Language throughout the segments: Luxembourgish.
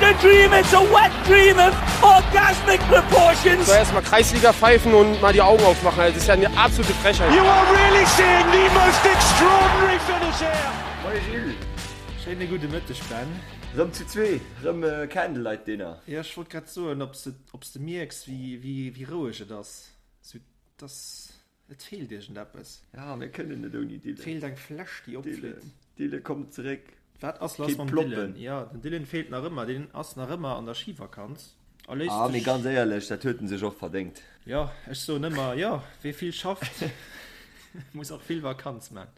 a dream, it's a wet dream of orgasmic proportions. So erstmal Kreisliga pfeifen und mal die Augen aufmachen. Das ist ja eine absolute Frechheit. You are really seeing the most extraordinary finish here. Moie Gilles. Schéine gudde Mëtteg Ben. Rëm zu zwee, rëm Candlelight Dinner. Jo, ech wollt grad soen, ob s de mierks wéi roueg et ass. Sou, dass Et feelt iergendeppes. Ja, mir kënnen net ouni Dylan. Et feelt eng Fläsch, déi opflitt. Dylan, komm zeréck. Wat ass lass mam Dylan? Jo, den Dylan feelt nach ëmmer. Deen ass nach ëmmer an der Schivakanz a léisst sech. Ah, mee ganz éierlech, dat huet en sech och verdéngt. Jo, ech soen ëmmer, jo, wee vill schafft, muss och vill Vakanz man.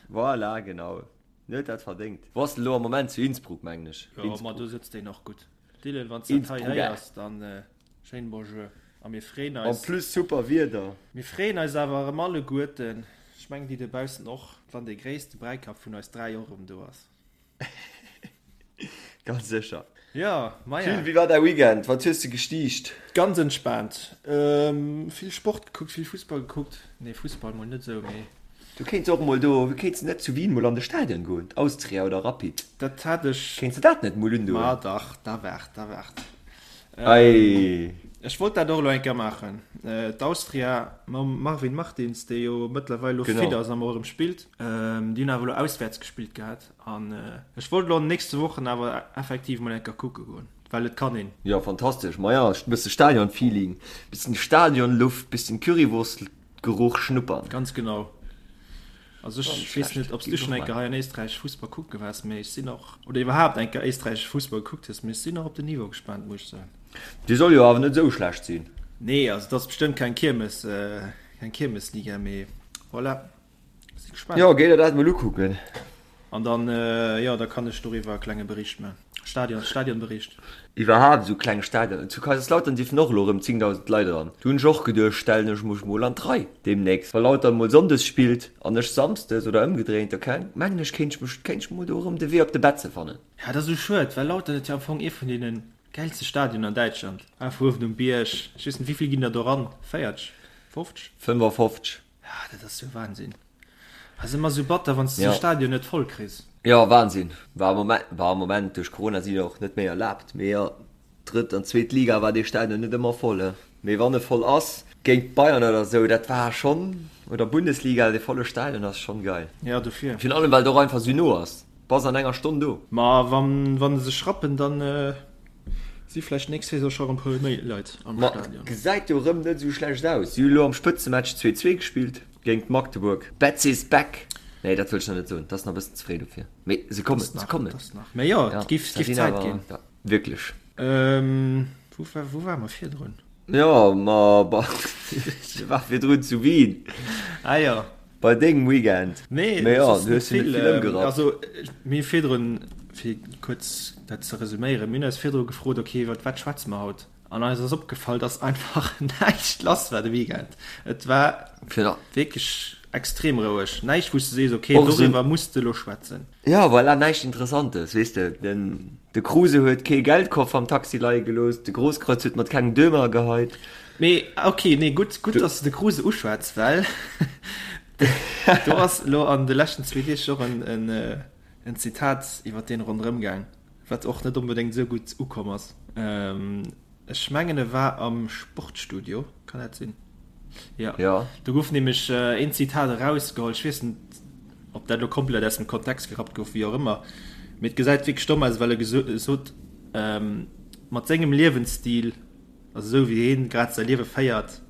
Voilà, genau. En huet dat verdéngt. Wou ass en elo am Moment? Zu Innsbruck, mengen ech. Jo, ma do sëtzt deen och gutt. Dylan, wann s dat hei héiers, dann schéin Bonjour a mir freeën eis. En plus super Wieder. Mir freeën eis awer erëm alleguerten, ech mengen déi dobaussen och, wann dee gréisste Bräikapp vun eis 3 och erëm do ass. Ganz sécher. Jo, maja. Gilles, wéi war däi Weekend? Wat hues de gestiicht? Ganz entspaant. Vill Sport gekuckt, vill Fussball gekuckt. Nee, Fussball mol net esou, mee. Du kéints och mol do, kéints de net zu Wien mol an de Stadion goen, Austria oder Rapid? Dat hat ech. Kéints de dat net mol undoen? Ma dach, da waart, da waart. Ei. Ech wollt dat och elo eng Kéier maachen. D'Austria mam Marvin Martins, dee jo mëttlerweil elo fit ass an och erëm spillt, déi hunn awer elo auswäerts gespillt gehat. An ech wollt elo an den nächste Wochen awer effektiv mol eng Kéier kucke goen, well et kann een. Jo, fantastesch. Maja, e bësse Stadion-Feeling, bëssen Stadionluft, bëssen Currywurst. Geruch schnuppern. Ganz genau. Also ech weess net, ob s du schonn eng Kéier hei an Éisträich Fussball kucke waars, mee ech sinn och, oder iwwerhaapt eng Kéier éisträichesche Fussball gekuckt hues, mee ech sinn och op den Niveau gespaant, muss ech soen. Dee soll jo awer net esou schlecht sinn. Nee, also et ass bestëmmt keng Kiermes, keng Kiermesliga, mee voilà, si gespaant. Jo, géi der dat mol ukucken. An dann, jo, da kann ech doriwwer e klenge Bericht man. Stadion, Stadionbericht. Iwwerhaapt esou kleng Stadionen. Zu Kaiserslautern dierfen och elo erëm 10.000 Leit eran. Do hunn ech och geduecht, stellen ech mech mol an d'Rei deemnächst. Wa Lautern mol sonndes spillt an ech samsdes oder ëmgedréint, da mengen ech kéint ech mech, kéint ech mol do erëm de Wee op de Betze fannen. Ja, dat ass esou schued, well Lautern huet jo am Fong ee vun deene gäilste Stadionen an Däitschland. Einfach uewen um Bierg. Ech weess net, wéi vill ginn der do eran? 40? 50? 55. Ja, dat ass jo Wahnsinn. Ass ëmmer sou batter wanns de sou Stadion net voll kriss. Jo Wahnsinn, war am Moment, war am Moment duerch Corona si jo och net méi erlaabt, mee jo drëtt an zweet Liga war dee Stadion net ëmmer voll he, mee wann e voll ass géint Bayern oder sou, dat war schonn, oder Bundesliga, dee volle Stadion ass schonn geil. Jo dofir. Virun allem well et och einfach sou no ass, bass an enger Stonn do. Ma wann wann se sech rappen dann si vläicht nächst Saison scho rem puer méi Leit am Stadion. Ma gesäit jo rëm net sou schlecht aus, si hu lo am Spëtzematch 2, 2 gespillt. Géint Magdeburg. Betz is back! Nee, dat wëll ech nach net soen, dat ass nach e bëssen ze fréi dofir. Mee se kommen, se kommen. Mee jo, et giff Zäit ginn. Wierklech. Wou wou ware mer virdrun? Jo, ma ech war virdrun zu Wien. Ah jo. Bei dengem Weekend. Nee, Mee jo, du hues jo net vill ëmgerappt. Also, mir hu virdrun, fir kuerz dat ze resuméieren, mir hunn eis virdru gefrot, okay, iwwer wat schwätze mer haut? An eis ass opgefall, dass einfach näischt lass war de Weekend. Et war wierklech extrem roueg. Näischt, wou s de sees, okay, doriwwer muss de elo schwätzen. Jo, voilà, näischt Interessantes, weess de. Den, de Kruse huet kee Geldkoffer am Taxi leie gelooss, de Grosskreutz huet mat kengem Dömer geheit. Mee okay, nee, gutt, gutt, dass de de Kruse uschwätz, well do ass elo an de leschten zwee Deeg och en, en, en Zitat iwwer deen ronderëm gaang. Wat och net onbedéngt esou gutt ukomm ass. Ech mengen e war am Sportstudio, kann dat sinn? Jo. Jo. Do gouf nämlech een Zitat erausgeholl, ech weess net, ob dat elo komplett aus dem Kontext gerappt gouf, wéi och ëmmer, mee et gesäit wierklech domm aus, well e gesot, mat sengem Liewensstil, also esou wéi hien grad säi Liewe féiert,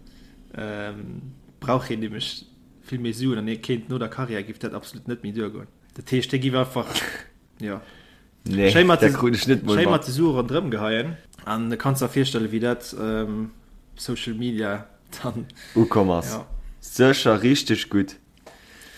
brauch hien nämlech vill méi Suen an hie kéint no der Karriär géif dat absolut net méi duergoen. Dat heescht, hie géif einfach. Jo. Nee, Schéi mat dat krut ech net mol schéi mat. mat de Sue ronderëm geheien. An du kanns der virstelle wéi dat um Social Media dann Ukomm ass. Ja. Sécher richteg gutt.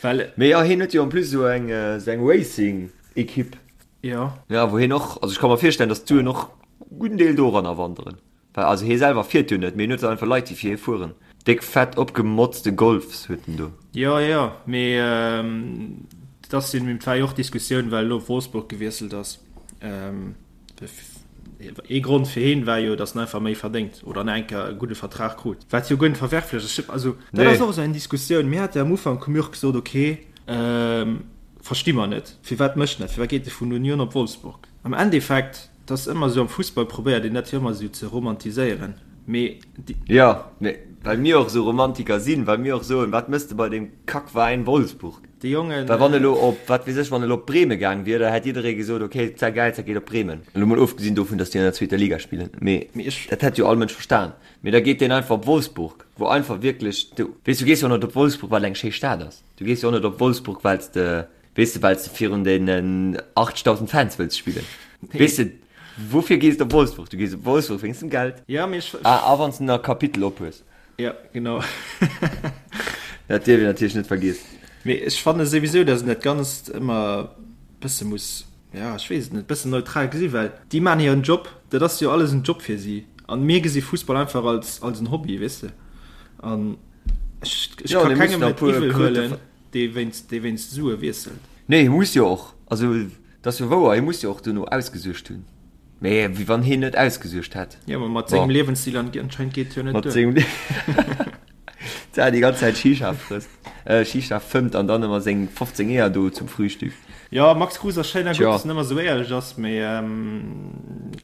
Well. Mee jo, hien huet jo en plus esou eng, esou eng Racing-Equipe. Jo. Ja, wou hien och, also ech ka mer virstellen, datt d'Suen och gudden Deel doranner wanderen. Well also hie selwer fiert jo net, mee hien huet einfach Leit déi fir hie fueren. Déck fett opgemotzte Golfs huet en do. Jo jo, mee et ass jo, et war jo och Diskussioun well elo op Wolfsburg gewiesselt ass. Ee Grond fir hien war jo, datt en einfach méi verdéngt oder nach eng Kéier e gudde Vertrag krut, wat jo guer net verwerflech ass. Also dat ass och esou eng Diskussioun. Mir hate am Ufank hu mir och gesot, ok, versti mer net, firwat mécht en dat, firwat geet e vun Union op Wolfsburg? Am Endeffekt. Et ass ëmmer esou, am Fussball probéiert een dat jo ëmmer esou ze romantiséieren, mee déi. Jo, mee well mir och esou Romantiker sinn, well mir och soen, wat mëss de bei deem Kackveräin Wolfsburg? Déi Jongen. Well wann elo op, wat weess ech, wann elo op Bremen gaang wier, da hätt jidderee gesot, ok, dat geil, dat geet op Bremen. Elo mol ofgesinn dovun, datt déi an der zweeter Liga spillen, mee dat hätt jo all Mënsch verstan. Mee da geet deen einfach op Wolfsburg, wou einfach wierklech, du weess, du gees jo och net op Wolfsburg, well et eng schéi Stad ass. Du gees jo och net op Wolfsburg, well s de Weess de, well s de virun deenen 80.000 Fans wëlls spillen. Weess de, woufir gees de op Wolfsburg? Du gees op Wolfsburg wéinst dem Geld. Ja, mee ech. Ah, a wann s de nach Kapitel op hues. Ja, genau. Dat dierf een natierlech net vergiessen. Mee ech fanne souwisou, datt een dat Ganzt ëmmer bësse muss, ja, ech weess et net, bëssen neutral gesi well déi maachen hiren Job, dat ass jo alles en Job fir si an mir gesi Fussball einfach als, als en Hobby, weess de. An ech, ech Jo, ka dee kengem mussen der e et puer iwwel Kröte huelen. Dee wéinst, dee wéinst Sue wiesselt. Nee, hie muss jo och, also et ass jo wouer, hie muss jo och duerno ausgesuergt hunn. Mee wéi wann hien net ausgesuergt hätt. Jo, ma mat sengem Bon. Liewensstil anscheinend geet et jo net Mat duer. sengem Lie déi ganz Zäit Shisha frësst, Shisha fëmmt an dann ëmmer seng 15 Eeër do zum Frühstück. Jo, Max Kruse ass schéin a gutt, Tjo. dass en ëmmer esou éierlech ass, mee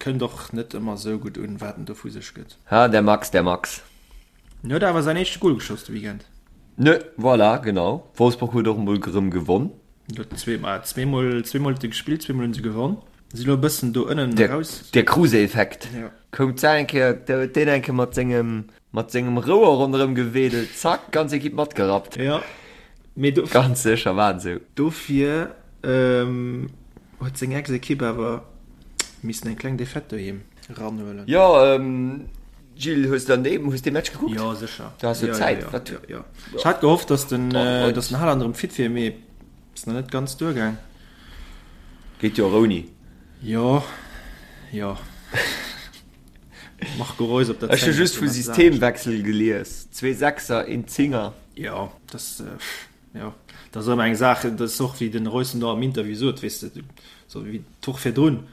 kënnt och net ëmmer esou gutt un, wat en do vu sech gëtt. Ha, der Max, der Max. En huet awer säin éischte Gol geschoss de Weekend. Ne, voilà, genau. Wolfsburg huet och emol gerëm gewonn. Huet zweemol, zweemol, zweemol huet e gespillt, zweemol hunn se gewonn. Si lo e bëssen do ënnen Der, eraus. der Kruse-Effekt. Ja. Koum d'Sa eng Kéier, da huet deen eng Kéier mat sengem, mat sengem Rouer ronderëm gewedelt, zack, ganz Ekipp matgerappt. Ja, mee do. Ganz sécher war et esou. Dofir huet seng Ex-Ekipp awer missen eng kleng Defaite doheem eranhuelen. Jo, Gilles, hues de an deem, hues dee Match gekuckt? Jo, sécher. Du has jo Zäit. Jo, Wat? jo, jo. Ech hat gehofft, dass den, Oh, dass den Haaland erëm fit wier, mee ass nach net ganz duergaang. Geet jo och ouni. Jo, jo. Marco Reus op der Ech hu 10 just ass vu jo eppes anescht. Systemwechsel gelies. Zwee Sechser, een Zinger. Jo, das, jo, dat ass ëmmer eng Saach. Dat ass och, wéi den Reus en do am Interview sot, weess de, sou wéi d'Woch virdrun,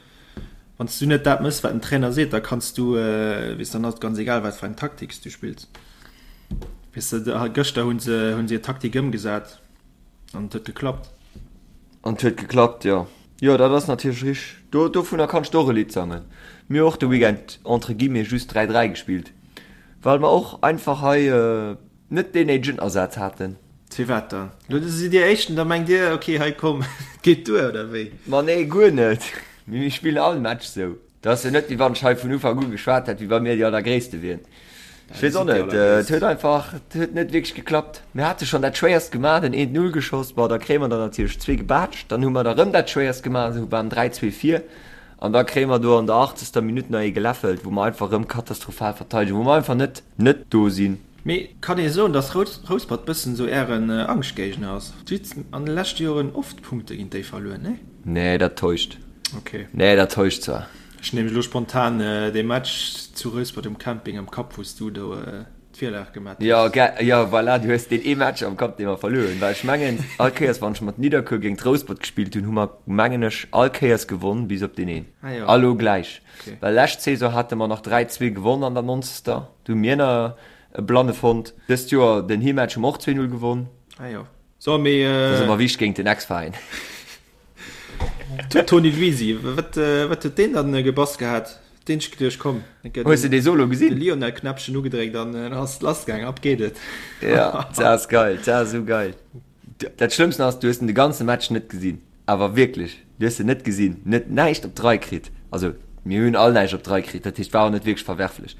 Wann s du net dat mëss, wat den Trainer seet, da kanns du, weess, dann ass et ganz egal, wat fir eng Taktik s du spills. Weess de, gëschter hu se, hu se hir Taktik ëmgesat an et huet geklappt. An et huet geklappt, jo. Jo, dat ass natierlech richteg. Do, dovunner kanns de och e Lidd sangen. Mir hu och de Weekend entre guillemets just 3, 3 gespillt, well mer och einfach hei net deen néidegen Asaz haten. Firwat dann? Lo sidd Dir Éischten, da mengt Dir, ok, hei komm, et geet duer, oder wéi? Ma nee, guer net. Mee mir spillen all Match sou. Dat ass jo net, wéi wann ech hei vun Ufank u geschwat hätt, wéi wa mir déi Allergréisste wieren. Ech weess och net, et huet einfach, et huet net wierklech geklappt. Mir hate schonn dat Schwéierst gemaach, den eent Null geschoss, bon, da kréie mer der natierlech zwee gebaatscht. Dann hu mer der rëm dat Schwéierst gemaach, sou waren 3, 2 vir. An da kréie mer do an der achtzegster Minutt nach ee geläffelt, wou mer einfach rëm katastrophal verteidegen, wou mer einfach net, net do sinn. Mee kann ee soen, dass Rouspert bëssen esou ären Angschtgéigner ass? Dir hutt an de leschte Joren oft Punkte géint déi verluer, nee? Nee, dat täuscht. Ok. Nee, dat täuscht zwar. Ech hunn nämlech elo spontan dee Match zu Rouspert um Camping am Kapp, wou s du do d'Virlag gemat hues. Jo, ge, jo, voilà, du hues deen ee Match am Kapp, dee mer verluer hunn. Well ech mengen, all Kéiers, wann ech mat Nidderkuer géint Rouspert gespillt hunn, hu mer, mengen ech, all Kéiers gewonn, bis op deen een. Ah jo. A lo gläich. Ok. Well lescht Saison hate mer nach 3, 2 gewonn an der nonzegster. Do hu mir nach e Blanne fonnt. Dëst Joer den Heematch hu mer och 2, 0 gewonn. Ah jo. So, mee. Dat ass ëmmer wichteg géint den Ex-Veräin. Toni Luisi, wat, wat huet deen dann gebass gehat? Deen ech geduecht, komm, Hues de dee Solo gesinn? De Lionel Knäppchen ugedréckt an dann ass et lass gaang, ab geet et. Ja, dat ass geil, dat ass esou geil. Dat Schlëmmsten ass, du hues en de ganze Match net gesinn, awer wierklech, du hues en net gesinn, net näischt op d'Rei kritt. Also mir hunn all näischt op d'Rei kritt, dat heescht war och net wierklech verwerflech.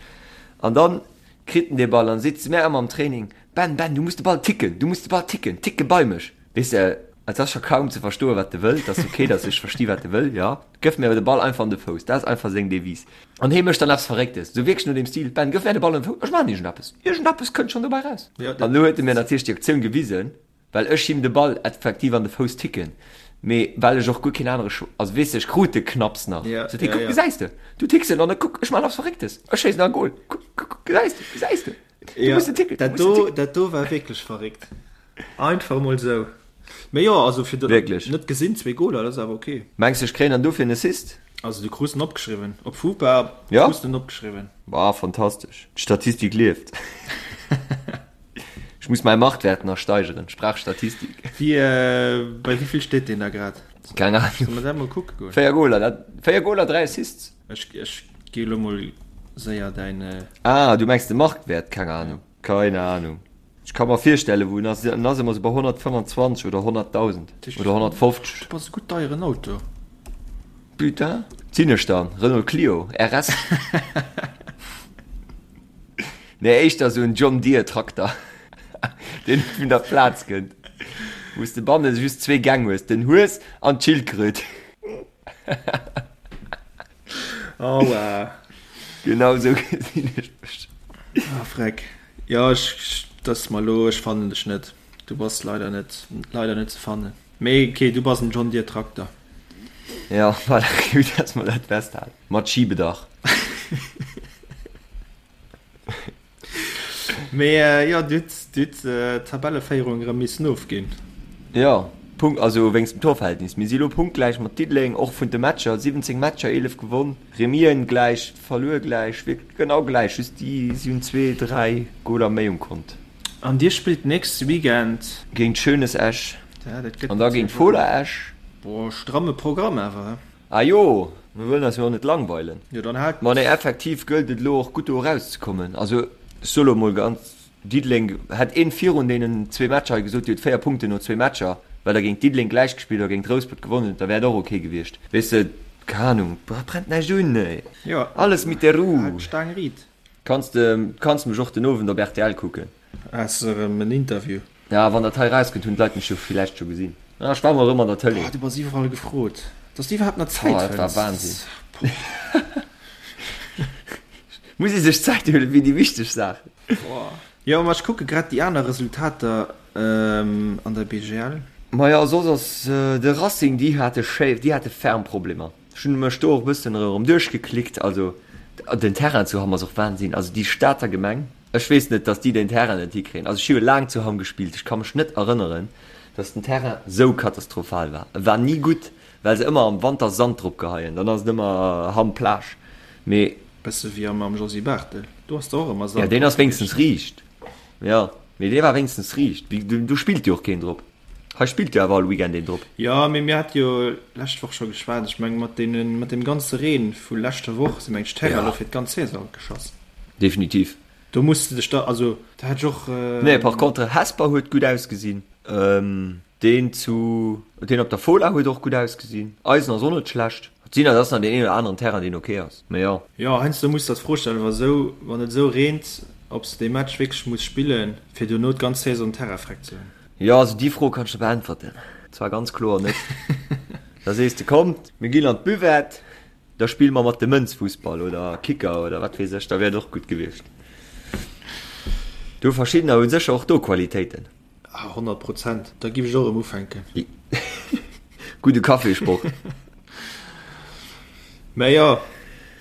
An dann kritt en dee Ball an seet zu mär ëmmer am Training, Ben, Ben, du muss de Ball ticken, du muss de Ball ticken, ticke bei mech. Weess de, et ass scho kaum ze verstoen, wat e wëll. Et ass ok, datt ech versti wat e wëll, jo. Gëff mir awer de Ball einfach an de Fouss. Dat ass einfach seng Devise. An hee mécht dann eppes Verrécktes, esou wierklech no deem Stil, Ben, gëff mär de Ball an de Fouss, ech maachen iergendeppes. Iergendeppes kënnt schonn dobäi raus. An elo huet e mir natierlech déi Aktioun gewisen, well ech him de Ball effektiv an de Fouss ticken, mee well ech och guer keen anere Choix, also weess de, ech krut de knapps nach. Sot hie, Kuck, gesäis de, du ticks en an da kuck, ech maachen eppes Verrécktes, ech schéissen nach e Gol. Kuck, kuck, kuck, gesäis de, gesäis de, du muss en ticken, du Dat muss en do, ticken. dat do war wierklech verréckt. Einfach mol sou. Mee jo, also fir dat Wierklech. net gesinn, zwee Goler, dat ass awer ok. Mengs de ech kréien dann dofir en Assist? Also du krus en opgeschriwwen. Op Fupa Ja? krus de en opgeschriwwen. Boah, fantastesch. D'Statistik lieft. Ech muss mäi Marktwert nach steigeren. Ech brauch Statistik. Wie, bei wéivill steet deen da grad? Keng Ahnung. Solle mer dat mol kucke goen? 4 Goler, dat 4 Goler, 3 Assists. Ech, ech gi lo mol séier däin. Ah, du mengs de Marktwäert? Keng Ahnung. Keine Ahnung. Ech ka mer virstellen, wou en ass. En ass ëmmer sou bei 125 oder 100.000 oder 150. Du bass e gutt deieren Auto. Putain. Sinn ech dann? Renault Clio RS? Nee, éischter sou en John Deere Trakter, deen net vun der Plaz kënnt, wou s de banne just zwee Gäng hues, den Hues an d'Schildkröt. Aua. Genau sou gesinn ech mech. Ah freck. Jo ech dass mer lo ech fannen dech net. Du bass leider net leider net ze fannen. Mee ok du bass en John Deere Trakter. Jo voilà, gutt dass mer dat festhalen. Mat Schiebedach. Mee jo, du hutt du hutt d'Tabelleféierung erëm missen ofginn. Jo, Punkt, also wéinst dem Torverhältnis. Mir si lo punktgläich mat Diddeleng, och vun de Matcher, 17 Matcher, 11 gewonn, Remis'en gläich, verluer gläich, wierklech genau gläich, just déi si hunn zwee, dräi Goler méi um Kont. An dir spillt nächste Weekend? Géint Schönes Esch an da géint Fola Esch. Boah, stramme Programm awer, he? Ah jo, mir wëllen eis jo och net langweilen. Jo, dann haalt. Ma nee, effektiv gëllt et elo och gutt do erauszekommen. Also ech soe lo mol ganz, Diddeleng, hätt een virun deenen zwee Matcher hei gesot, Dir hutt 4 Punkten no zwee Matcher, well der géint Diddeleng gläich gespillt oder géint Rouspert gewonnen hutt, da wär et och ok gewiescht. Weess de, keng Ahnung, brennt näischt un, ey. Jo, Alles mit der Ruh. haalt d'Staang riit. Kanns de, kanns mech och den Owend op rtl kucken. Has de erëm en Interview? Ja, wann dat hei rauskënnt, hunn d'Leit mech jo villäicht scho gesinn. Ah, ech war mol erëm an der Tëlee. Oh, du bass iwwerall gefrot. Dass du iwwerhaapt nach Zäit Oh, dat war fënns. Wahnsinn. Muss ee sech Zäit huelen fir déi wichteg Saachen. Boah. Jo, ma ech kucke grad déi aner Resultater an der BGL. Majo, soss ass de Racing, déi hate schéi, déi hate ferm Problemer. Ech hunn mech do och e bëssen erëm duerchgeklickt. Also den Terrain zu Hamm ass och Wahnsinn. Also déi Stater Gemeng. Ech weess net, dass déi den Terrain net hikréien. Also ech hu jo laang zu Hamm gespillt, ech ka mech net erënneren, dass den Terrain sou katastrophal war. E war ni gutt, well se ëmmer am Wanter Sand drop geheien, dann ass et ëmmer Hamm Plage. Mee. Bësse wéi am am Josy Barthel, do ass der och ëmmer Ja, Sand deen drop ass wéinstens gewiescht. riicht. Jo, mee dee war wéinstens riicht. Do spillt jo och keen drop. Hei spillt jo awer all Weekend een drop. Jo, mee mir hate jo lescht Woch scho geschwat. Ech mengen, mat deenen, mat deem ganze Reen vu leschter Woch si meng ech d'Terrainen elo fir d'ganz Saison geschoss. Definitiv. Do muss de dech da, also da hätt ech och. Nee, par contre Hesper huet gutt ausgesinn. Deen zu, deen op der Fola huet och gutt ausgesinn. Eisen ass och net schlecht. Et sinn, et ass nach deen een oder aneren Terrain deen ok ass, mee jo. Jo, heiansdo muss der d'Fro stellen, wa sou, wann et esou reent, ob s de dee Match wierklech muss spillen, fir dono d'ganz Saison Terrain freck ze hunn. Jo, also déi Fro kann ech der beäntwerten. Zwar ganz kloer net. Da sees de, kommt, mir ginn an d'Buvette, da spille mer mat de Mënz Fussball oder Kicker oder wat weess ech, da wär et och gutt gewiescht. Do verschiddener hu sécher och do Qualitéiten. Ah, 100 Prozent, da giff ech och erëm ufänken. Gudde Cafésport. Mä jo,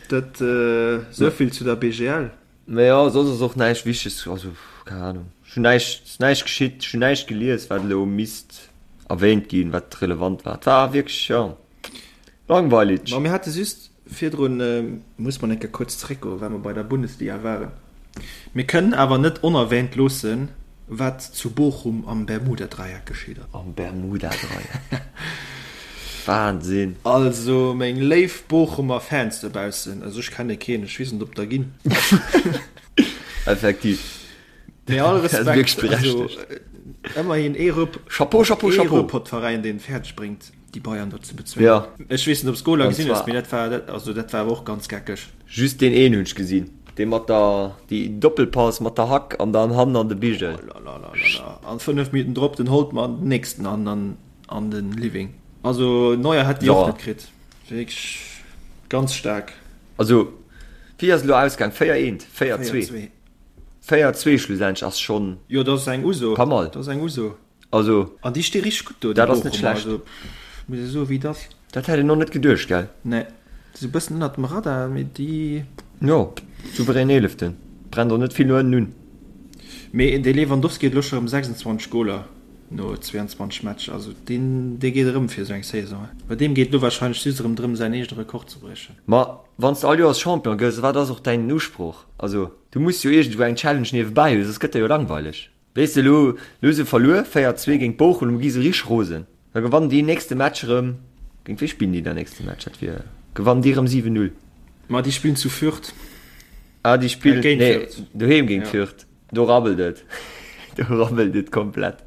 dat esouvill zu der BGL. Mä jo, soss ass och näischt Wichteges, also keng Ahnung, ech hunn näischt, ass näischt geschitt, ech hunn näischt gelies, wat elo misst erwähnt ginn, wat relevant war. Et war wierklech, jo, langweilig. Ma mir hate just virdrun, muss mer eng Kéier kuerz zeréckgoen, well mer bei der Bundesliga waren, mir kënnen awer net onerwähnt loossen, wat zu Bochum am Bermuda-Dreieck geschitt ass. Am Bermuda-Dreieck, Wahnsinn! Also meng léif Bochumer Fans dobaussen, also ech kenne keen, ech weess net op der ginn. Effektiv. Mee all Respekt, also ëmmerhin ee Rupp, Chapeau, Chapeau, ee Chapeau. Ruhrpott-Veräin deen et fäerdeg bréngt déi Bayern do ze bezwéngen. Ja. Ech weess net op s Goler An gesinn hues, zwar. mee dat war, dat, also dat war awer och ganz geckeg. Just deen een hunn ech gesinn, dee mat der, déi Doppelpass mat der Hack an dann hannen an de Bigel. Oh la la la la la. An 5 Minuten drop den Holtmann den nächsten an an an den Living. Also Neuer hätt déi och Ja. net kritt. Wierklech ganz staark. Also wéi ass et elo ausgaang? 4 eent, 4 2? 4-2. 4 2 schlussendlech ass schonn Jo, dat ass eng Uso. pas mal. Dat ass eng Uso. Also. An déi sti richteg gutt do, déi Dat ass net Bochumer. schlecht. Also pff, muss ee soen, wéi et ass. Dat hätt een och net geduecht, gell? Nee, déi si e bëssen ënnert dem Radar, mee déi. Jo, souverän Eeleften. Brennt och net vill no ënnen un. Mee de Lewandowski huet elo scho rëm 26 Goler no 22 Matcher. Also deen, dee geet erëm fir esou eng Saison. Bei deem geet elo warscheinlech just erëm drëm, säin eegene Rekord ze briechen. Ma wann s de all Joers Champion gëss, wat ass och däin Usproch? Also du muss jo iergendwou eng Challenge niewebäi hunn, soss gëtt der jo langweileg. Weess de, elo elo hu se verluer, 4, 2 géint Bochum, elo gi se richteg rosen. Da gewannen déi nächste Match erëm. Géint wee spillen déi dann nächste Match? Dat wier, gewannen déi erëm 7, 0? Ma déi spillen zu Fürth. Ah, déi spillen, géint nee, Fürth. Doheem géint ja. Fürth. Do rabbelt et. Do rabbelt et komplett.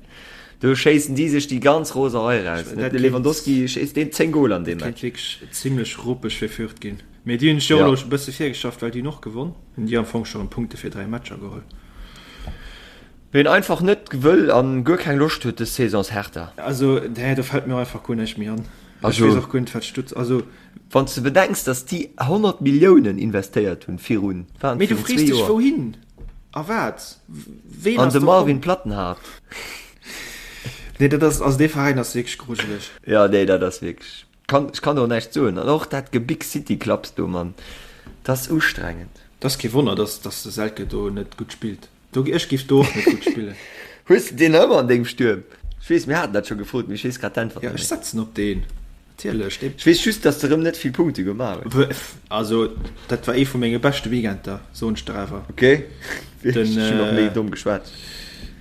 Do schéissen déi sech déi ganz Roserei raus. De Lewandowski schéisst deen 10 Goler an deem Match. Dat kéint wierklech zimlech ruppeg fir Fürth ginn. Mee déi hunn sech jo och elo e bësse virgeschafft, well déi hunn och gewonn. Hunn déi am Fong scho rëm Punkte fir 3 Matcher geholl. Ween einfach net wëll an guer keng Loscht huet des Saison ass Hertha. Also nee, do fällt mir och einfach guer näischt méi an. Ech weess och guer net wat Stutz, also. Wann s de bedenks dass déi 100 Milliounen investéiert hunn virun, waren et virun zwee Joer. Mee du frees dech wouhin a wat? Ween ass do komm? An de Marvin Plattenhardt. Nee dat ass, also dee Veräin ass wierklech grujeleg. Jo nee dat ass wierklech, kann, ech kann do näischt soen. An och dat Gebig City Clubs do Mann, dat ass ustrengend. Dat ass kee Wonner dass dass de Selke do net gutt spillt. Do, ech giff do och net gutt spillen. Hues de deen nach ëmmer an dengem Stuerm? Ech weess, mir haten dat scho gefrot, mee ech weess grad d'Äntwert net méi. Jo, ech setzen op deen, natierlech. Ech weess just, dass de rëm net vill Punkte gemaach hues. Also, dat war ee vu menge beschte Weekender, soen ech der awer. Ok, ech hunn och méi domm geschwat.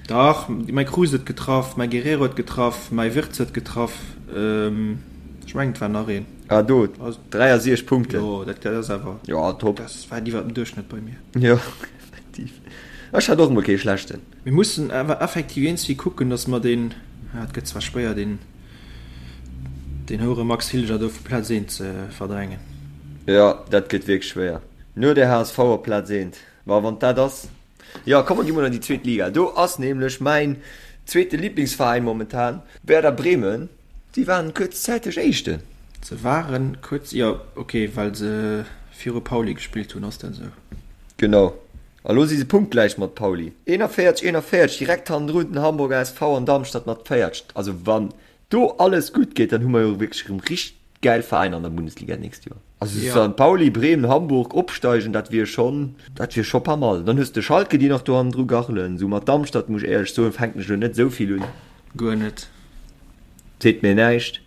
Dach, mäi Kruse huet getraff, mäi Guerrero huet getraff, mäi Wirtz huet getraff, ech mengen et war nach een. Ah do, 63 Punkten. Jo, dat ass awer. Jo, top. Dat war iwwer dem Duerchschnëtt bei mir. Jo. Effektiv. Ech hat och emol kee schlechten. Mir mussen awer effektiv iergendwéi kucken, dass mer deen, ah, et gëtt zwar schwéier, deen, deen Houre Max Hilger do vu Plaz eent ze verdrängen. Jo, dat gëtt wierklech schwéier. No der HSV op Plaz eent. Ma wann dat ass. Jo, komm mer gi mol an déi zweet Liga. Do ass nämlech mäin zweete Liblingsveräin momentan, Werder Bremen. Déi waren kuerzzäiteg Éischten. Se waren kuerz, jo, ok, well se viru Pauli gespillt hunn, ass dat esou? Genau. A lo si se punktgläich mat Pauli. 41, 41, direkt hannendrun den Hamburger SV an Darmstadt mat 40. Also wann do alles gutt geet, dann hu mer jo wierklech erëm richteg gäil Veräiner an der Bundesliga d'nächst Joer. Also ja. St. Pauli, Bremen, Hamburg opsteigen, dat wier schonn, dat wier scho pas mal. Dann hues de Schalke, déi nach do hannendru gachelen. Sou mat Darmstadt, muss ech éierlech soen, fänken ech elo net esou vill un. Guer net. Seet mir näischt.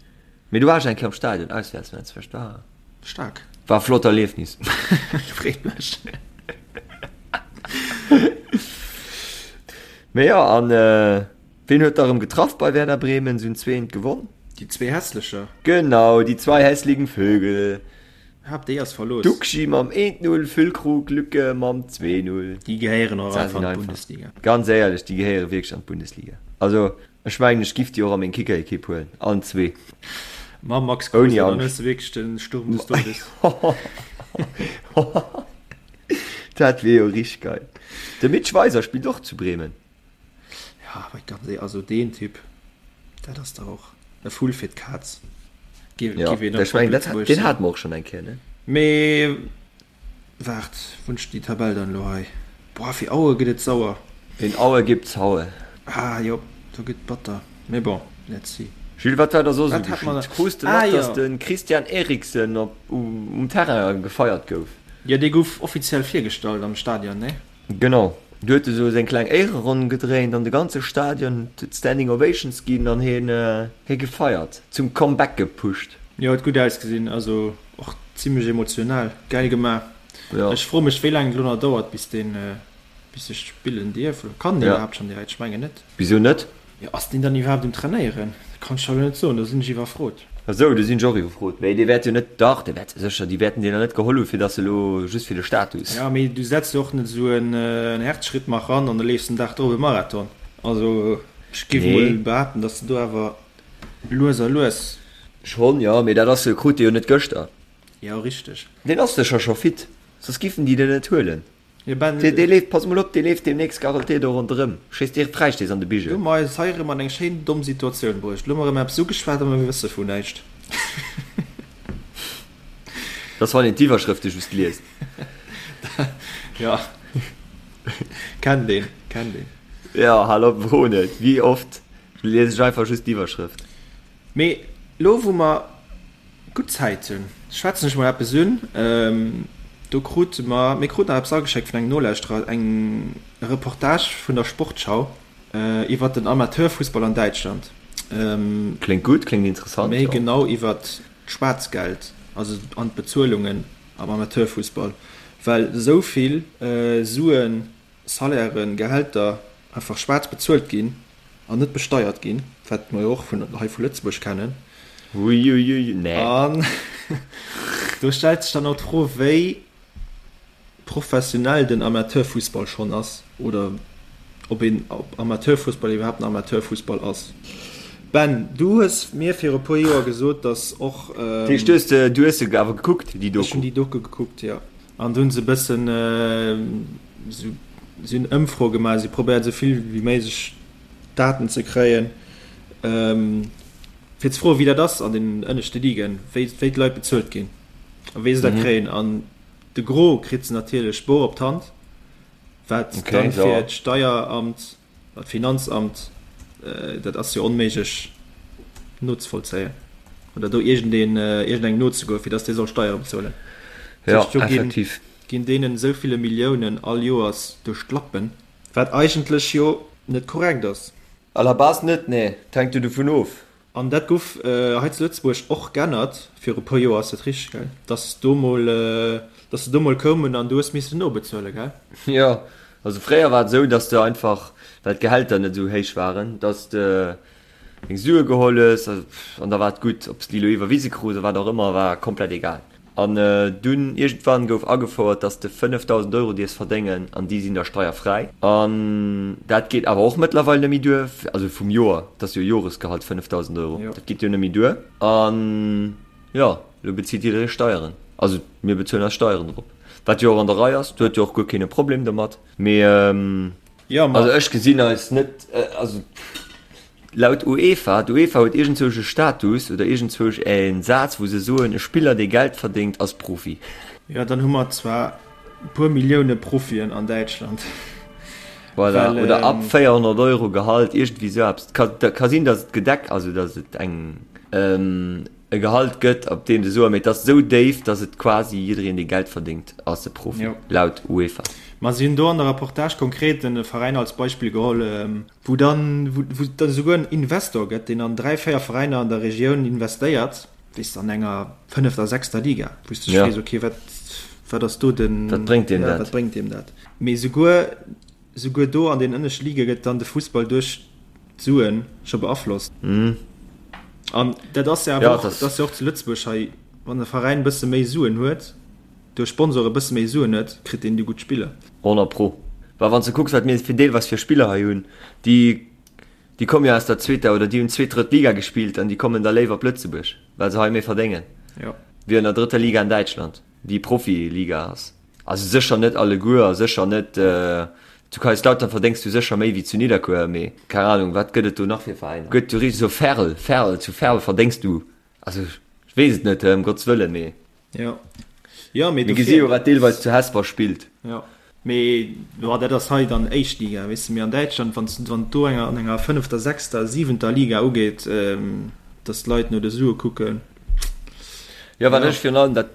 Mee du war ech eng Kéier am Stadion, Auswäertsmatch, vläicht war. Staark. War e flott Erliefnis. Freet mech. Mee jo, an wien huet da rëm getraff bei Werder Bremen? Se hunn 2-1 gewonn. Déi zwee Hässlecher. Genau, die zwei hässlichen Vögel. Hab déi ass verlooss. Duxi mam 1-0, Füllkrug, Lücke mam 2-0. Déi gehéieren och einfach an d'Bundesliga. Ganz éierlech, déi gehéiere wierklech an d'Bundesliga. Also Ech mengen ech giff déi och a meng Kickerequipe huelen, allen zwee. Mam Max Kruse, dann hues de wierklech den Sturm des Todes. Dat wier jo richteg geil. De Mitch Weiser spillt och zu Bremen. Ja, awer ganz éierlech, also deen Typ, dat ass dach och e Vull fir d'Kaz. Ja, ech mengen dat, deen hate mer och schonn eng Kéier, ne? Mee Waart, wou hunn ech déi Tabell dann elo hei? Boah, fir Aue gëtt et sauer. In Aue gibt's Haue. Ah jo, do gëtt batter. Mee bon, let's see. Jules, wat war da soss esou geschitt? Krus de mat, dass de Christian Eriksen op um Terrain gefeiert gouf? Jo, dee gouf offiziell virgestallt am Stadion, nee? Genau, do huet e sou seng kleng Éiereronn gedréint an de ganze Stadion huet Standing Ovations ginn an hien hie gefeiert, zum Comeback gepusht. Jo, huet gutt ausgesinn, also och zimlech emotional, gäil gemaach. Jo. Ech froe mech wéi laang et elo nach dauert bis deen bis e spillen dierf, oder kann deen iwwerhaapt schonn direkt? Ech mengen net. Wisou net? Jo, ass deen dann iwwerhaapt um Trainéieren? Dat kann ech der elo net soen, do sinn ech iwwerfrot. A sou, do sinn ech och iwwerfrot. Mee dee wäert jo net, dach, dee wäert sécher, déi wäerten deen der net geholl hu fir datt se elo just fir de Status. Jo, mee du setz jo och net esou en Herzschrittmacher an an da leefs den Dag drop e Marathon. Also ech géif emol behaapten, datt s de do awer lues a lues. Schonn, jo, mee dat ass, krut dee jo net gëschter. Jo, richteg. Deen ass sécher scho fit, soss giffen déi deen net huelen. Jo, Ben. Dee leeft, pass mol op, dee leeft deemnächst garantéiert och ronderëm, schéisst direkt Fräistéiss an de Bigel. Lo hu mer eis hei erëm an eng schéin domm Situatioun bruecht. Lo hu mer erëm eppes ugeschwat a mer wësse vun näischt. Dat ass wann een d'Iwwerschrëfte just liest. Jo, kennt een, kennt een. Jo, hal op, fro net, wéi oft lies ech einfach just d'Iwwerschrëft. Mee lo wou mer gutt Zäit hunn, schwätzen ech mol eppes un. Do krute mer, mir kruten nach eppes ageschéckt vun engem Nolauschterer, eng Reportage vun der Sportschau iwwert den Amateurfussball an Däitschland. Kléngt gutt, kléngt interessant, jo. Méi genau iwwert d'Schwaarzgeld, also an d'Bezuelungen am Amateurfussball, well esou vill Suen, Salairen, Gehälter einfach schwaarz bezuelt ginn an net besteiert ginn, wat mer jo och vun hei vu Lëtzebuerg kennen. Uiuiui, nee. An do stellt sech dann och d'Fro, wéi professionell den Amateurfussball schonn ass oder ob een ob Amateurfussball iwwerhaapt en Amateurfussball ass. Ben, du hues mir viru puer Joer gesot, datt och. Dat heescht, du hues se, du hues se awer gekuckt, déi Doku? Ech hunn déi Doku gekuckt, jo. An do hunn se e bëssen esou, si hunn Ëmfroe gemaach, si probéiert esou vill wéi méiglech Daten ze kréien, fir ze froen, wéi dat ass an den ënneschte Ligen, wéi, wéi d'Leit bezuelt ginn a wéi se dat kréien. An De Gros kritt se natierlech bor op d'Hand, wat dann fir d'Steieramt, d'Finanzamt, dat ass jo onméiglech nozevollzéien oder do iergendeen, iergendengem nozegoen, fir datt dee soll Steiere bezuelen. Jo, effektiv. Ginn deenen esou ville Milliounen all Joers duerch d'Lappen, wat eigentlech jo net korrekt ass. À la base net, nee. Et hänkt jo dovun of. An dat guff hei zu Lëtzebuerg och g'ännert viru puer Joer, ass dat richteg, gell? Dass do mol, dass se do mol koumen an du hues missen nobezuelen, gell? Jo, also fréier war et esou, dass de einfach, well d'Gehälter net esou héich waren, dass de deng Sue geholl hues an da war et gutt. Ob s de déi elo iwwerwise krus oder wat och ëmmer, war komplett egal. An dunn iergendwann gouf agefouert, dass de 5.000 Euro dierfs verdéngen an déi sinn da steierfräi. An dat geet awer och mëttlerweil net méi duer, also vum Joer, dat ass jo Joresgehalt, 5.000 Euro, dat geet jo net méi duer. An jo, elo bezilt jidderee Steieren. Also mir bezuelen eis Steieren drop, wat jo och an der Rei ass, do huet jo och guer keen e Problem domat. Mee also ech gesinn eis net, also. Laut UEFA, d'UEFA huet iergendzwousch e Status oder iergendzwousch e Saz, wou se soen, e Spiller, dee Geld verdéngt, ass Profi. Jo, dann hu mer zwar e puer Millioune Profien an Däitschland. Voilà, well, oder ab 400 Euro Gehalt, iergendwéi esou eppes. Et ka sinn, datt et gedeck, also datt et eng, e Gehalt gëtt, op deem se soen, mee et ass esou déif, datt et quasi jiddereen, dee Geld verdéngt, ass e Profi, laut UEFA. Ma si hunn do an der Reportage konkret e Veräin als Beispill geholl, Wou dann, wou et dann esouguer en Investor gëtt, deen an 3, 4 Veräiner an der Regioun investéiert, weess de, an enger fënnefter, sechster Liga, wou s de dech frees, okay, wat, wat ass do den, Wat bréngt deem dat? Wat bréngt deem dat? Mee esouguer, esouguer do an den ënneschte Lige gëtt dann de Fussball duerch d'Suen scho beaflosst. An dat ass jo awer och, dat ass jo och zu Lëtzebuerg hei, wann e Veräin e bësse méi Suen huet, duerch Sponsore e bësse méi Suen huet, kritt deen déi gutt Spiller. 100 pro. Well wann s de kucks wat mir fir deelweis fir Spiller hei hunn, déi déi komme jo aus der zweeter oder déi hunn zweet, drëtt Liga gespillt an déi kommen da léiwer op Lëtzebuerg, well se hei méi verdéngen wéi an der drëtter Liga an Däitschland, déi Profiliga ass. Also sécher net alleguer a sécher net, zu Kaiserslautern verdéngs du sécher méi wéi zu Nidderkuer, mee keng Anung, wat gëtt et do nach fir Veräiner? Gëtt jo richteg esou Verl, Verl, zu Verl verdéngs du, also ech weess et net, ëm Gottes Wëllen, mee. Jo. Jo, mee Mir gesi jo wat deelweis zu Hesper spillt. Jo. Mee jo, dat ass hei dann éischt Liga, weess de. Mee an Däitschland, wann s, wann et do enger, an enger fënnefter, sechster, siwenter Liga ugeet, datt d'Leit no de Sue kucken. Jo, wat ech virun allem dat,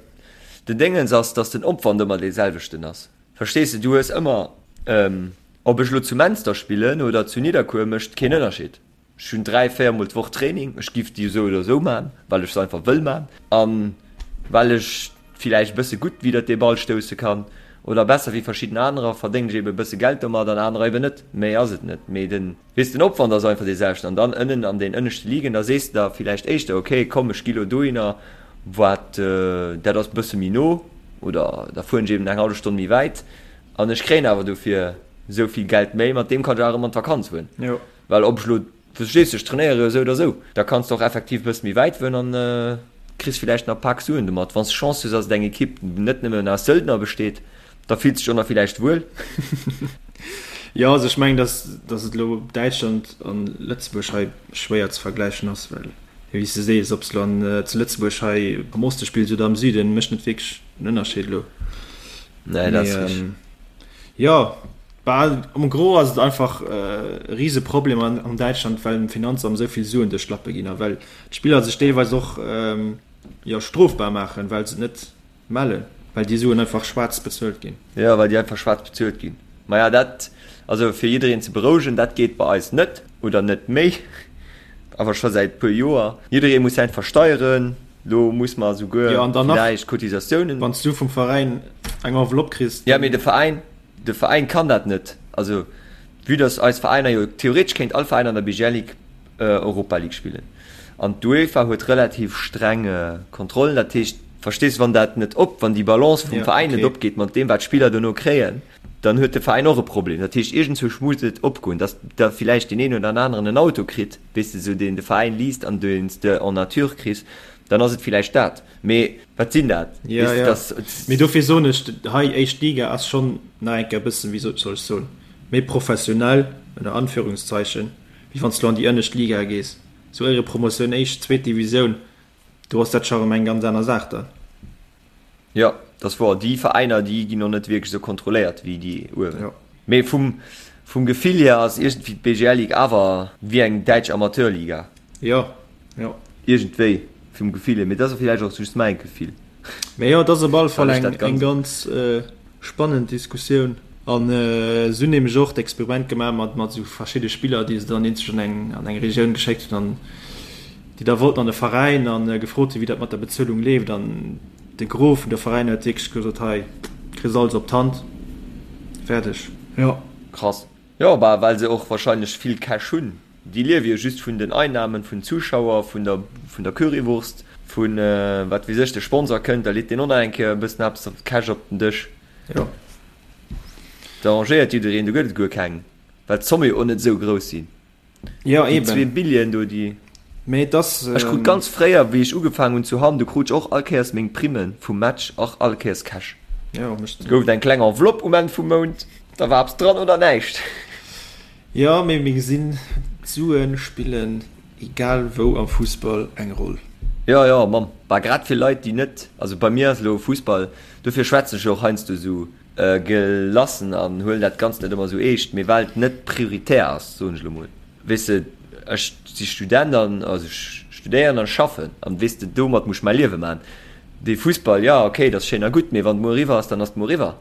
den Déngens ass, datt den Opwand ëmmer dee selwechten ass. Verstees de? Du hues ëmmer, ob ech elo zu Menster spillen oder zu Nidderkuer, mécht keen Ënnerscheed. Ech hunn 3, 4 mol d'Woch Training. Ech giff déi esou oder esou man, well ech se einfach wëll man an well ech villäicht e bësse gutt widder dee Ball stousse kann oder besser wéi verschidden anerer, verdéngen ech eben e bësse Geld domat an anerer eben net. Méi ass et net. Mee den, weess, den Opwand ass einfach dee selwechten an dann ënnen an den ënneschte Ligen, da sees de der villäicht éischter, ok, komm ech gi lo dohinner, wat dat ass e bësse méi no oder da fueren ech eben eng hallef Stonn méi wäit an ech kréien awer dofir esou vill Geld méi, mat deem kann ech awer erëm an d'Vakanz fueren. Well ob ech lo, verstees de, ech trainéiere jo esou oder esou, da kanns de och effektiv e bësse méi wäit fueren an kriss villäicht nach e Pak Suen domat. Wann s de Chance hues, dass et eng Ekipp net nëmmen aus Söldner besteet, da fills de dech och nach villäicht wuel. Jo, also ech mengen, dass, dass et elo Däitschland an Lëtzebuerg hei schwéier ze vergläichen ass, well, wéi s de sees, ob s de elo an, zu Lëtzebuerg hei am Oste spills oder am Süden, mécht net wierklech en Ënnerscheed elo. Nee, dat ass richteg. Jo, Bah, am Gros ass et einfach e Riseproblem an Däitschland, well dem Finanzamt esou vill Suen duerch d'Lappe ginn a well d'Spiller sech deelweis och jo strofbar maachen, well se et net mellen, well déi Suen einfach schwaarz bezuelt ginn. Jo, well déi einfach schwaarz bezuelt ginn. Maja, dat, also fir jiddereen ze berouegen, dat geet bei eis net oder net méi, awer scho säit puer Joer. Jidderee muss säint versteieren. Lo muss mer esouguer Jo, an dann nach, villäicht Cotisatiounen. wann s du vum Veräin eng Enveloppe kriss, Ja, mee de Veräin, De Veräin kann dat net. Also vue dass eis Veräiner jo, theoretesch kéint all Veräin an der BGL Ligue Europa League spillen. An d'UEFA huet relativ streng Kontrollen. Dat heescht, verstees, wann dat net op, wann déi Balance vum Veräin net opgeet mat deem, wat d'Spiller dono kréien, dann huet de Veräin och e Problem. Dat heescht, iergendzwousch muss et opgoen, datt da villäicht deen een oder aneren en Auto kritt, weess de, esou deen de Veräin least an deen s de en nature kriss, dann ass et villäicht dat. Mee wat sinn dat? Jo, jo. Mee dofir soen ech, hei éischt Liga ass schonn nach eng Kéier e bëssen, wéi soll ech soen, méi professionell, ënner Anführungszeichen, wéi wann s de lo an déi ënnescht Liga gees. Sou Éierepromotioun, éischt, zweet Divisioun, do ass dat scho rëm eng ganz aner Saach dann. Jo, dat ass wouer. Déi Veräiner, déi ginn och net wierklech esou kontrolléiert wéi déi uewen. Mee vum, vum Gefill hier ass iergendwéi d'BGL Ligue awer wéi eng däitsch Amateurliga. Jo, jo. Iergendwéi, vum Gefill hier. Mee dat ass villäicht och just mäi Gefill. Mee jo, et ass op alle Fall eng, eng ganz spannend Diskussioun. An se hunn nämlech och d'Experiment gemaach mat, mat esou verschidde Spiller, déi se dann eenzeg an eng, an eng Regioun geschéckt hunn an déi da wollten an de Veräin an gefrot hunn, wéi dat mat der Bezuelung leeft. An de Gros vun de Veräiner huet wierklech gesot, hei, kriss alles op d'Hand, fäerdeg. Jo. Krass. Jo, bah, well se och wahrscheinlech vill Cash hunn. Déi liewe jo just vun den Einnahmen vun Zuschauer, vun der, vun der Currywurst, vun wat weess ech. De Sponsor kënnt, da leet deen och nach eng Kéier e bëssen eppes op Cash op den Dësch. Jo. Da arrangéiert jiddereen, do gëtt et guer keng, well d'Zomme jo och net esou grouss sinn. Jo, eben. Déi zwee Billien do, déi. Mee et ass. Ech krut ganz fréier, wéi ech ugefaangen hunn zu Hamm, do krut ech och all Kéiers meng Primme vum Match, och all Kéiers Cash. Jo, mécht. Et gouf et eng kleng Enveloppe um Enn vum Mount, da war eppes dran oder näischt. Jo, mee mir gesinn, d'Sue spillen egal wou am Fussball eng Roll. Jo, jo, mam, bah, grad fir Leit, déi net, also bei mir ass elo Fussball, dofir schwätzen ech jo och heiansdo esou gelassen an huelen dat Ganzt net ëmmer esou eescht, mee well et net prioritär ass, soen ech elo mol. Weess de, ech si Student an, also ech studéieren an schaffen an, weess de, domat muss ech mäi Liewe maachen. Dee Fussball, jo, okay, dat ass schéin a gutt, mee wann et muer eriwwer ass, dann ass et muer eriwwer,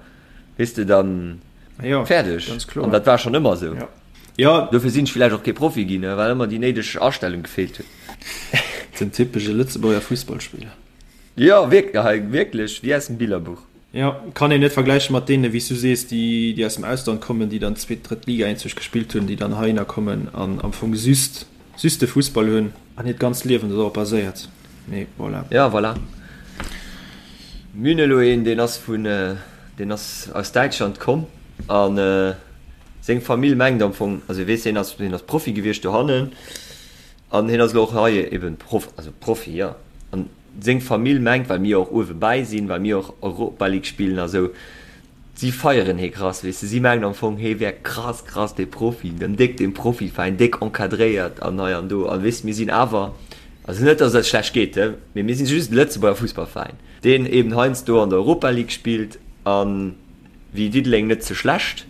weess de, dann fäerdeg. An dat war schonn ëmmer esou. Dofir sinn ech villäicht och kee Profi ginn, well ëmmer déi néideg Astellung gefeelt huet. Den typesche Lëtzebuerger Fussballspiller. Jo, wierklech, wéi aus dem Billerbuch. Jo, kann een net vergläichen mat deenen, wéi s du sees, déi déi aus dem Ausland kommen, déi dann zweet, drëtt Liga eenzeg gespillt hunn, déi dann heihinner kommen an am Fong just just de Fussball hunn an hiert ganzt Liewen dorop baséiert. Mee voilà. Ja, voilà. Mir hunn elo een, deen ass vun, deen ass aus Däitschland komm an seng Famill mengt am Fong, also weess, hien ass, hien ass Profi gewiescht dohannen an hien ass elo och hei eben Prof, also Profi, jo. An Seng Famill mengt, well mir och uewe bäi sinn, well mir och Europa League spillen a sou, si feieren hee krass, weess de. Si mengen am Fong, hee wär krass, krass dee Profi, den déck, dee Profiveräin, déck encadréiert an hei an do. An weess de, mir sinn awer, also net, datt et eis schlecht geet, he, mee mir sinn just e Lëtzebuerger Fussballveräin, deen eben heiansdo an der Europa League spillt a wéi Diddeleng net ze schlecht.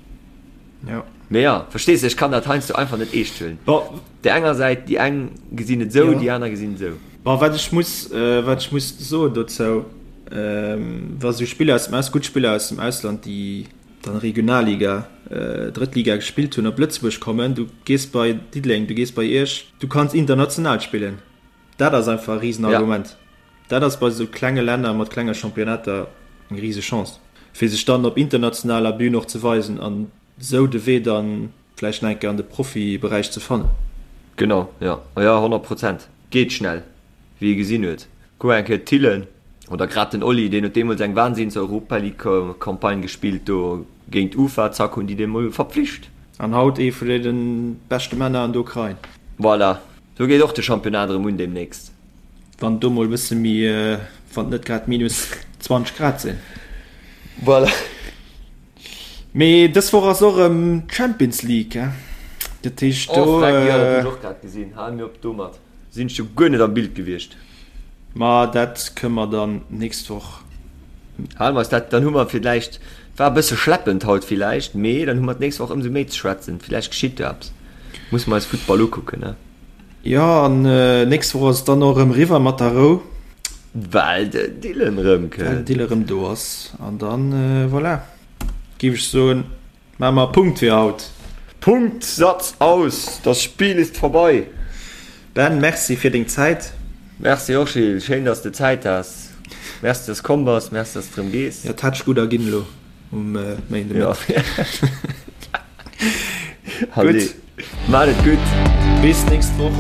Jo. Mee jo, verstees de, ech kann dat heiansdo einfach net eescht huelen. Op där enger Säit, déi eng gesinn et esou, déi aner gesinn et esou. Bon, wat ech muss, wat ech muss soen dozou, wa sou Spiller aus dem Aus, gutt Spiller aus dem Ausland, déi dann Regionalliga, Drëttliga gespillt hunn, op Lëtzebuerg kommen, du gees bei Diddeleng, du gees bei Iech, du kanns international spillen. Dat ass einfach e Risenargument. Dat ass bei esou klenge Länner mat klenge Championnater eng rise Chance, fir sech dann op internationaler Bühn och ze weisen an esou de Wee dann vläicht nach eng Kéier an de Profiberäich ze fannen. Genau, jo, jo, 100 Prozent. Geet schnell, wéi ee gesinn huet. Kuck eng Kéier d'Thillen oder grad den Oli, deen huet deemools eng Wahnsinns Europa League Campagne gespillt do géint Ufa, zack hunn déi dee mol verpflicht. An haut ee vun deene beschte Männer an der Ukrain. Voilà, do geet och de Championnat erëm un deemnächst. Wann do mol e bësse méi, wann et net grad minus 20 Grad sinn. Voilà. Mee dës Woch ass och erëm d'Champions League, he? Dat heescht do. Oh freck, jo, dat hunn ech och grad gesinn. Hal mir op domat. Sinn ech jo guer net am Bild gewiescht. Ma dat kënne mer dann nächst Woch. Hale mer eis dat, dann hu mer villäicht, war e bësse schleppend haut villäicht, mee dann hu mer d'nächst Woch ëmsou méi ze schwätzen. Villäicht geschitt jo eppes. Musse mer eis Futtball ukucken, ne? Jo, an nächst Woch ass et dann och erëm eriwwer mat der Rou. Well den Dylan erëm kënnt. Well den Dylan erëm do ass. An dann, voilà, géif ech soen, maache mer e Punkt fir haut. Punkt, Satz, aus! Das Spiel ist vorbei! Ben, Merci fir deng Zäit. Merci och, Gilles. Schéin, dass de Zäit has. Merci, dass de komm bass. Merci, dass de erëm gees. Jo, et hätt sech gutt erginn elo um Méindemëtteg. Gutt. Maat et gutt. Bis nächst Woch.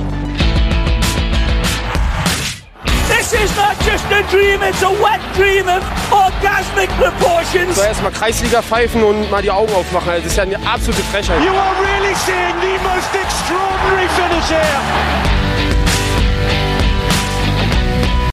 is not just a dream, it's a wet dream of orgasmic proportions. So erstmal Kreisliga pfeifen und mal die Augen aufmachen. Also das ist ja eine absolute Frechheit. You are really seeing the most extraordinary finish here.